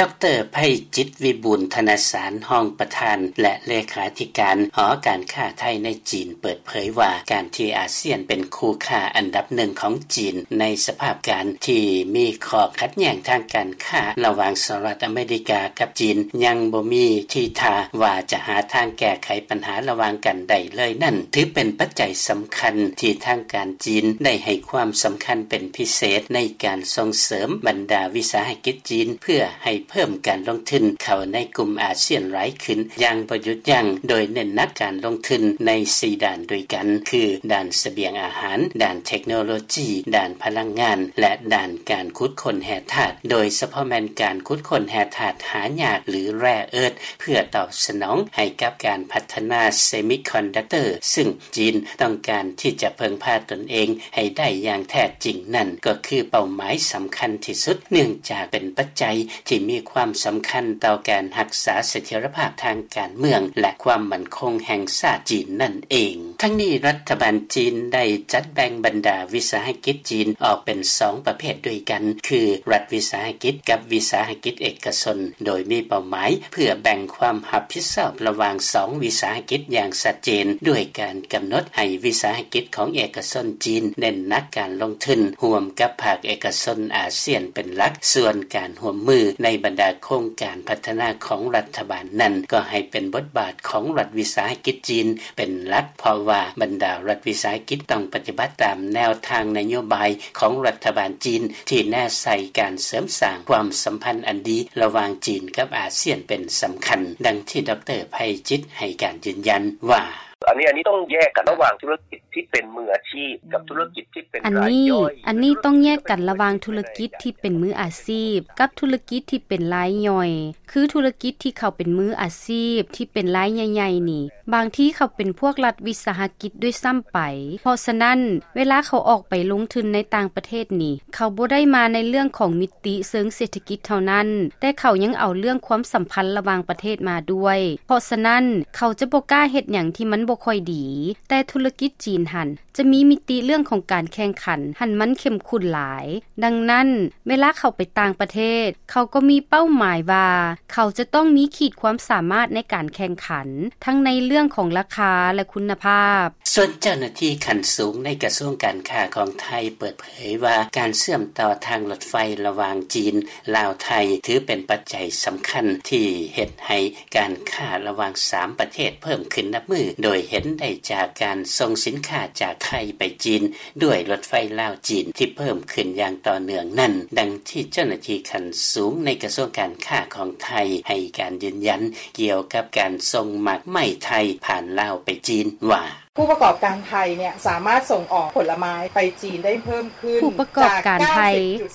ດຣ ໄພຈິດ ວິບູນທະນະສານ ຮອງປະທານ ແລະ ເລຂາທິການ ຫໍການຄ້າໄທໃນຈີນ ເປີດເຜີຍວ່າ ການທີ່ອາຊຽນເປັນຄູ່ຄ້າອັນດັບໜຶ່ງຂອງຈີນ ໃນສະພາບການທີ່ມີຂໍ້ຂັດແຍ້ງທາງການຄ້າ ລະຫວ່າງສະຫະລັດອາເມລິກາກັບຈີນ ຍັງບໍ່ມີທີທ່າວ່າຈະຫາທາງແກ້ໄຂບັນຫາລະຫວ່າງກັນໄດ້ເລີຍນັ້ນ ຖືເປັນປັດໄຈສຳຄັນທີ່ທາງການຈີນໄດ້ໃຫ້ຄວາມສຳຄັນເປັນພິເສດ ໃນການສົ່ງເສີມບັນດາວິສາຫະກິດຈີນ ເພື່ອໃຫ້ເພີ່ມການລົງທຶນເຂົ້າໃນກຸ່ມອາຊຽນຫຼາຍຂຶ້ນຢ່າງບໍ່ຢຸດຢັ້ງ ໂດຍເນັ້ນໜັກການລົງທຶນໃນສີ່ດ້ານດ້ວຍກັນ ຄື ດ້ານສະບຽງອາຫານ, ດ້ານເທັກໂນໂລຈີ, ດ້ານພະລັງງານ ແລະ ດ້ານການຂຸດຄົ້ນແຮ່ທາດ ໂດຍສະເພາະແມ່ນການຂຸດຄົ້ນແຮ່ທາດຫາຍາກ ຫຼື rare earth ເພື່ອຕອບສະໜອງໃຫ້ກັບການພັດທະນາເຊມິຄອນດັກເຕີ ຊຶ່ງຈີນຕ້ອງການທີ່ຈະເພິ່ງພາຕົນເອງໃຫ້ໄດ້ຢ່າງແທ້ຈິງນັ້ນ ກໍຄືເປົ້າໝາຍສຳຄັນທີ່ສຸດ ເນື່ອງຈາກເປັນປັດໄຈທີ່ມີຄວາມສຳຄັນຕໍ່ການຮັກສາສະຖຽນລະພາບທາງການເມືອງ ແລະ ຄວາມໝັ້ນຄົງແຫ່ງຊາດຈີນນັ້ນເອງ. ທັງນີ້ ລັດຖະບານຈີນໄດ້ຈັດແບ່ງບັນດາວິສາຫະກິດຈີນອອກເປັນສອງປະເພດດ້ວຍກັນ ຄື ລັດວິສາຫະກິດ ກັບ ວິສາຫະກິດເອກະຊົນ ໂດຍມີເປົ້າໝາຍເພື່ອແບ່ງຄວາມຮັບຜິດຊອບລະຫວ່າງສອງວິສາຫະກິດຢ່າງຊັດເຈນ ດ້ວຍການກຳນົດໃຫ້ວິສາຫະກິດຂອງເອກະຊົນຈີນເນັ້ນໜັກການລົງທຶນຮ່ວມກັບພາກເອກະຊົນອາຊຽນເປັນຫຼັກ, ສ່ວນການຮ່ວມມືໃນບັນດາໂຄງການພັດທະນາຂອງລັດຖະບານນັ້ນ ກໍໃຫ້ເປັນບົດບາດຂອງລັດວິສາຫະກິດຈີນເປັນຫຼັກ, ເພາະວ່າບັນດາລັດວິສາຫະກິດຕ້ອງປະຕິບັດຕາມແນວທາງນະໂຍບາຍຂອງລັດຖະບານຈີນ ທີ່ແນໃສ່ການເສີມສ້າງຄວາມສຳພັນອັນດີລະຫວ່າງຈີນກັບອາຊຽນເປັນສຳຄັນ, ດັ່ງທີ່ ດຣ ໄພຈິດ ໃຫ້ການຢືນຢັນວ່າ: ອັນນີ້ ອັນນີ້ຕ້ອງແຍກກັນລະຫວ່າງທຸລະກິດທີ່ເປັນມືອາຊີບກັບທຸລະກິດທີ່ເປັນລາຍຍ່ອຍ. ອັນນີ້ຕ້ອງແຍກກັນລະຫວ່າງທຸລະກິດທີ່ເປັນມືອາຊີບກັບທຸລະກິດທີ່ເປັນລາຍຍ່ອຍ. ຄືທຸລະກິດທີ່ເຂົາເປັນມືອາຊີບທີ່ເປັນລາຍໃຫຍ່ໆນີ້ ບາງທີເຂົາເປັນພວກລັດວິສາຫະກິດດ້ວຍຊ້ຳໄປ. ເພາະສະນັ້ນ ເວລາເຂົາອອກໄປລົງທຶນໃນຕ່າງປະເທດນີ້ ເຂົາບໍ່ໄດ້ມາໃນເລື່ອງຂອງມິຕິເຊີງເສດຖະກິດເທົ່ານັ້ນ, ແຕ່ເຂົາຍັງເອົາເລື່ອງຄວາມສຳພັນລະຫວ່າງປະເທດມາດ້ວຍ. ເພາະສະນັ້ນ ເຂົາຈະບໍ່ກ້າເຮັດຫຍັງທີ່ມັນບໍ່ຄ່ອຍດີ. ແຕ່ທຸລະກິດຈີນຫັ້ນ ຈະມີມິຕິເລື່ອງຂອງການແຂ່ງຂັນຫັ້ນມັນເຂັ້ມຂຸ້ນຫຼາຍ. ດັ່ງນັ້ນ ເວລາເຂົາໄປຕ່າງປະເທດ ເຂົາກໍມີເປົ້າໝາຍວ່າ ເຂົາຈະຕ້ອງມີຂີດຄວາມສາມາດໃນການແຂ່ງຂັນ ທັງໃນເລື່ອງຂອງລາຄາ ແລະ ຄຸນນະພາບ. ສ່ວນເຈົ້າໜ້າທີ່ຂັ້ນສູງໃນກະຊວງການຄ້າຂອງໄທເປີດເຜີຍວ່າ ການເຊື່ອມຕໍ່ທາງລົດໄຟລະຫວ່າງຈີນ ລາວ ໄທ ຖືເປັນປັດໄຈສຳຄັນທີ່ເຮັດໃຫ້ ການຄ້າລະຫວ່າງສາມປະເທດເພີ່ມຂຶ້ນນັບມື້, ໂດຍເຫັນໄດ້ຈາກການສົ່ງສິນຄ້າຈາກໄທໄປຈີນ ດ້ວຍລົດໄຟລາວ-ຈີນທີ່ເພີ່ມຂຶ້ນຢ່າງຕໍ່ເນື່ອງນັ້ນ, ດັ່ງທີ່ເຈົ້າໜ້າທີ່ຂັ້ນສູງໃນກະຊວງການຄ້າຂອງໄທໃຫ້ການຢືນຢັນກ່ຽວກັບການສົ່ງໝາກໄມ້ໄທຜ່ານລາວໄປຈີນວ່າ: ຜູ້ປະກອບການໄທເນຍ ສາມາດສົ່ງອອກຜົນລະໄມ້ໄປຈີນໄດ້ເພີ່ມຂຶ້ນ ຜູ້ປະກອບການໄທ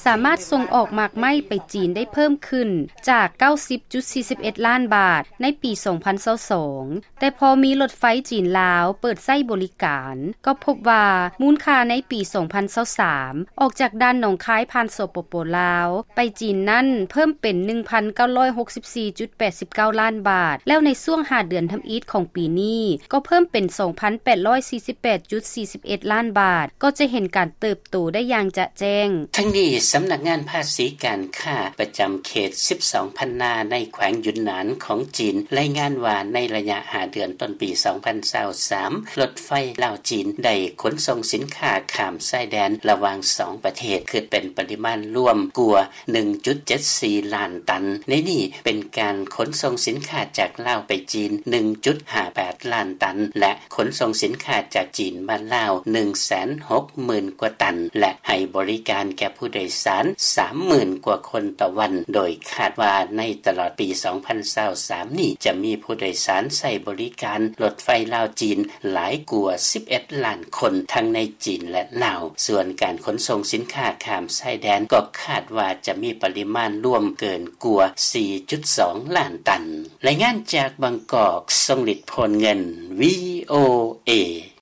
ສາມາດສົ່ງອອກໝາກໄມ້ໄປຈີນໄດ້ເພີ່ມຂຶ້ນຈາກເກົ້າສິບຈຸດສີ່ສິບເອັດລ້ານບາດໃນປີສອງພັນຊາວສອງ ແຕ່ພໍມີລົດໄຟຈີນ-ລາວເປີດໃຊ້ບໍລິການ ກໍພົບວ່າມູນຄ່າໃນປີສອງພັນຊາວສາມ ອອກຈາກດ່ານໜອງຄາຍຜ່ານ ສປປ ລາວ ໄປຈີນນັ້ນເພີ່ມເປັນໜຶ່ງພັນເກົ້າຮ້ອຍຫົກສິບສີ່ຈຸດແປດສິບເກົ້າລ້ານບາດ ແລ້ວໃນຊ່ວງຫ້າເດືອນທຳອິດຂອງປີນີ້ ກໍເພີ່ມເປັນສອງພັນແປດຮ້ອຍສີ່ສິບແປດຈຸດສີ່ສິບເອັດລ້ານບາດ ກໍຈະເຫັນການເຕີບໂຕໄດ້ຢ່າງຈະແຈ້ງ. ທັງນີ້ ສຳນັກງານພາສີການຄ້າປະຈຳເຂດສິບສອງພັນນາໃນແຂວງຢຸນໜານຂອງຈີນ ລາຍງານວ່າໃນໄລຍະຫ້າເດືອນຕົ້ນປີສອງພັນຊາວສາມ ລົດໄຟລາວ-ຈີນໄດ້ຂົນສົ່ງສິນຄ້າຂ້າມຊາຍແດນລະຫວ່າງສອງປະເທດ ຄິດເປັນປະລິມານລວມກວ່າໜຶ່ງຈຸດເຈັດສີ່ລ້ານຕັນ. ໃນນີ້ເປັນການຂົນສົ່ງສິນຄ້າຈາກລາວໄປຈີນໜຶ່ງຈຸດຫ້າແປດລ້ານຕັນ ແລະ ຂົນສົ່ງສິນຄ້າຈາກຈີນມາລາວໜຶ່ງແສນຫົກໝື່ນກວ່າຕັນ ແລະ ໃຫ້ບໍລິການແກ່ຜູ້ໂດຍສານສາມໝື່ນກວ່າຄົນຕໍ່ວັນ, ໂດຍຄາດວ່າໃນຕະຫຼອດປີສອງພັນຊາວສາມນີ້ ຈະມີຜູ້ໂດຍສານໃຊ້ບໍລິການລົດໄຟລາວ-ຈີນຫຼາຍກວ່າສິບເອັດລ້ານຄົນ ທັງໃນຈີນ ແລະ ລາວ. ສ່ວນການຂົນສົ່ງສິນຄ້າຂ້າມຊາຍແດນ ກໍຄາດວ່າຈະມີປະລິມານລວມເກີນກວ່າສີ່ຈຸດສອງລ້ານຕັນ. ລາຍງານຈາກບາງກອກ ຊົງລິດ ໂພນເງິນ ວີໂອເອ.